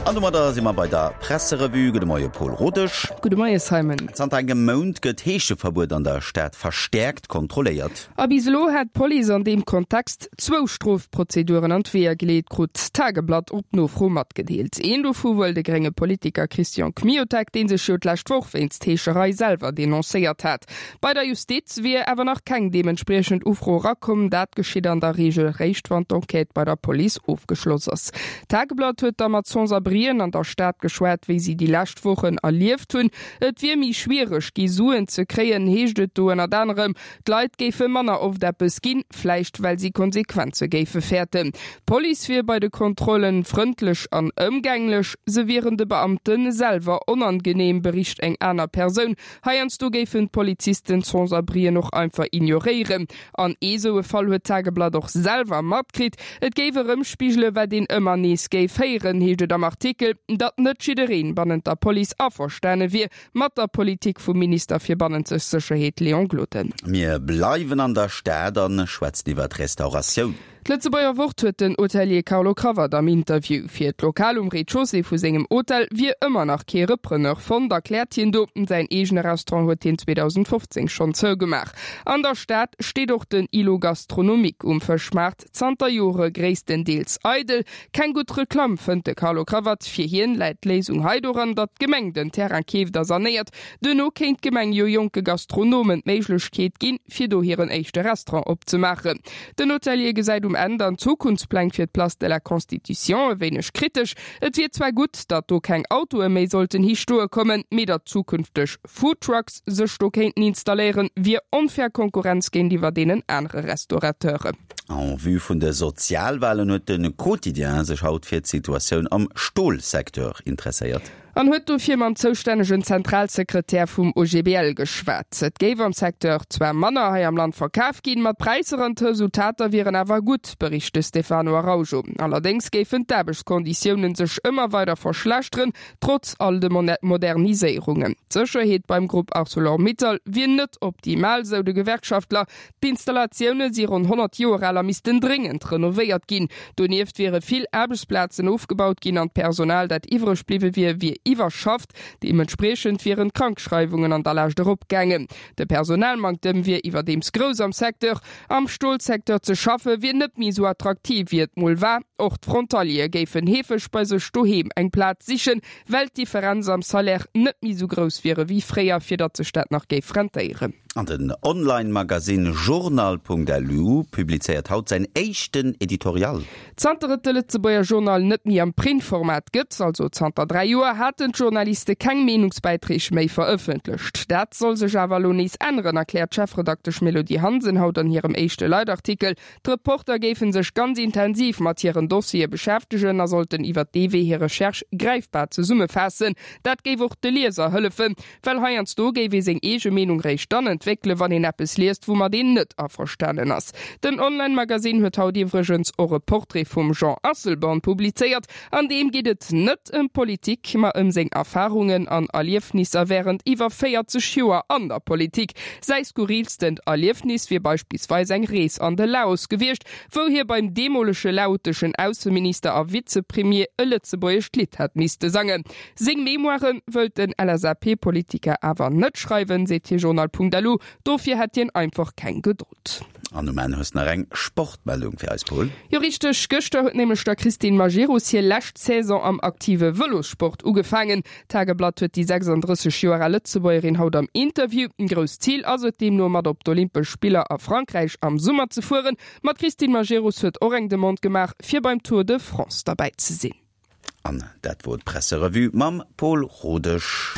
An domadder si mer bei der Presserevue. Gudde Moie Paul Rodesch. Gudde Moie Simon. Zanter engem Mount gëtt d'Heescheverbuet an der Stad verstäerkt kontrolléiert. A bis elo hätt d'Police an deem Kontext zwou Strofprozeduren an d'Weeër geleet, krut d'Tageblatt op Nofro matgedeelt. Een dovu wuel de grénge Politiker Christian Kmiotek, dee sech jo d'lescht Woch wéinst Heescherei selwer denoncéiert hat. Bei der Justiz wier awer nach keng deementspriechend Ufro erakomm. Dat geschitt an der Reegel réischt, wann d'Enquête bei der Police ofgeschloss ass. D'Tageblatt huet da mat Sans-abrien an der Stad geschwat, wéi si déi lescht Wochen erlieft hunn. Et wier méi schwiereg gi Suen ze kréien, heescht et do ënnert anerem. D'Leit géife manner oft eppes ginn, vläicht well si Konsequenze géife fäerten. D'Police wier bei de Kontrollen frëndlech an ëmgänglech, se wieren de Beamte selwer onangeneem, bericht eng aner Persoun. Heiansdo géifen d'Polizisten d'Sans-abrien och einfach ignoréieren. An ee sou e Fall huet d'Tageblatt och selwer matkritt. Et géif erëmspigele wat een ëmmer nees géif héieren, heescht et am Artikel, datt net jiddereen bannent der Police averstane wier mat der Politik vum Minister fir bannenzeg Sécherheet Léon Gloden. Mir bleiwen an der Stad a schwätzen iwwer d'Restauratioun. D'Lëtzebuerger Wort huet den Hotelier Carlo Cravat am Interview. Fir d'Lokal um Rez-de-chaussée vu sengem Hotel wier ëmmer nach kee Repreneur fonnt, erkläert hien do. Säin eegene Restaurant huet hien 2015 schonn zougemaach. An der Stad steet och den Îlot Gastronomique um Fëschmaart, zanter Jore gréisstendeels eidel. Keng gutt Reklamm, fënnt de Carlo Cravat. Fir hien läit d'Léisung hei doran, datt d'Gemeng den Terrain keeft a sanéiert. Duerno kéint d'Gemeng jo jonke Gastronomen d'Méiglechkeet ginn, fir do hiren éischte Restaurant opzemaachen. Den Hotelier gesäit um Enn dann d'Zukunftspläng fir d'Place de la Constitution e wéineg kritesch. Et wier zwar gutt, datt do keng Autoe méi sollten hi stoe kommen, mee datt zukünfteg Foodtrucks sech do kéinten installéieren, wier onfair Konkurrenz géintiwwer deenen anere Restaurateuren. En vue vun de Sozialwalen huet de Quotidien sech haut fir d'Situatioun am Stolsecteur interesséiert. An huet dofir mam zoustännegen Zentralsekretär vum OGBL geschwat. Et géif am Secteur zwar manner hei am Land verkaf ginn, ma d'Präisser an d'Resultater wieren awer gutt, bericht de Stefano Araujo. Allerdéngs géifen d'Aarbechtskonditiounen sech ëmmer weider verschlechteren, trotz all de Moderniséierungen. D'Sécherheet beim Grupp Arcelor-Mittal wier net optimal, sou de Gewerkschaftler. D'Installatioune si ronn 100 Joer al a missten dréngend renovéiert ginn. Donieft wiere vill Aarbechtsplazen ofgebaut ginn an d'Personal, dat iwwreg bliwwe wier, wier iwwerschafft. Deementspriechend wieren d'Krankschreiwungen an der Lescht eropgaangen. De Personalmanktem wier iwwerdeems grouss am Secteur. Am Stolsecteur ze schaffe wier net méi esou attraktiv, wéi et mol war. Och d'Frontaliere géifen heefeg bei sech doheem eng Plaz sichen, well d'Differenz am Salaire net méi esou grouss wier ewéi fréier, fir datt sech dat nach géif rentéieren. An den Online-Magasinn Journal.lu publizéiert haut säin éischten Editorial. Zanter et de Lëtzebuerger Journal net méi am Printformat gëtt, also zanter 3 Joer, haten d'Journaliste keng Meenungsbäiträg méi verëffentlecht. Dat soll sech awer elo nees änneren, erkläert d'Chefredaktesch Mélodie Hansen haut an hirem éischte Leitartikel. D'Reporter géife sech ganz intensiv mat hiren Dossiere beschäftegen a sollten iwwer dee Wee hir Recherche gräifbar zesummefaassen. Dat géif och de Lieser hëllefen, well heiansdo géif ee seng eege Meenung réischt dann entwéckelen, wann een eppes liest, woumat een net averstanen ass. Den Online-Magasinn huet haut iwwregens och e Portrait vum Jean Asselborn publizéiert. An deem geet et net ëm Politik, ma ëm seng Erfarungen an Erliefnisser wärend iwwer 40 Joer an der Politik. Säi skurrilstent Erliefnis wier beispillsweis eng Rees an de Laos gewiescht, wou hie beim deemolege laoteschen Ausseminister a Vizepremier e lëtzebuergescht Lidd hätt misste sangen. Seng Memoiren wëllt den LSAP-Politiker awer net schreiwen, seet hie Journal.lu. Dofir hätt hien einfach keng Gedold. An um Enn hues nach eng Sportmeldung fir eis, Paul. Jo richteg, gëschter huet nämlech der Christine Majerus hir lescht Saison am aktive Vëlossport ugefaangen. D'Tageblatt huet déi 36 Joer al Lëtzebuergerin haut am Interview. Grousst Zil ass et deemno mat op d'Olympesch Spiller a Frankräich am Summer ze fueren. Ma d'Christine Majerus huet och eng Demande gemaach fir beim Tour de France derbäi ze sinn. An dat wor d'Presserevue mam Paul Rodesch.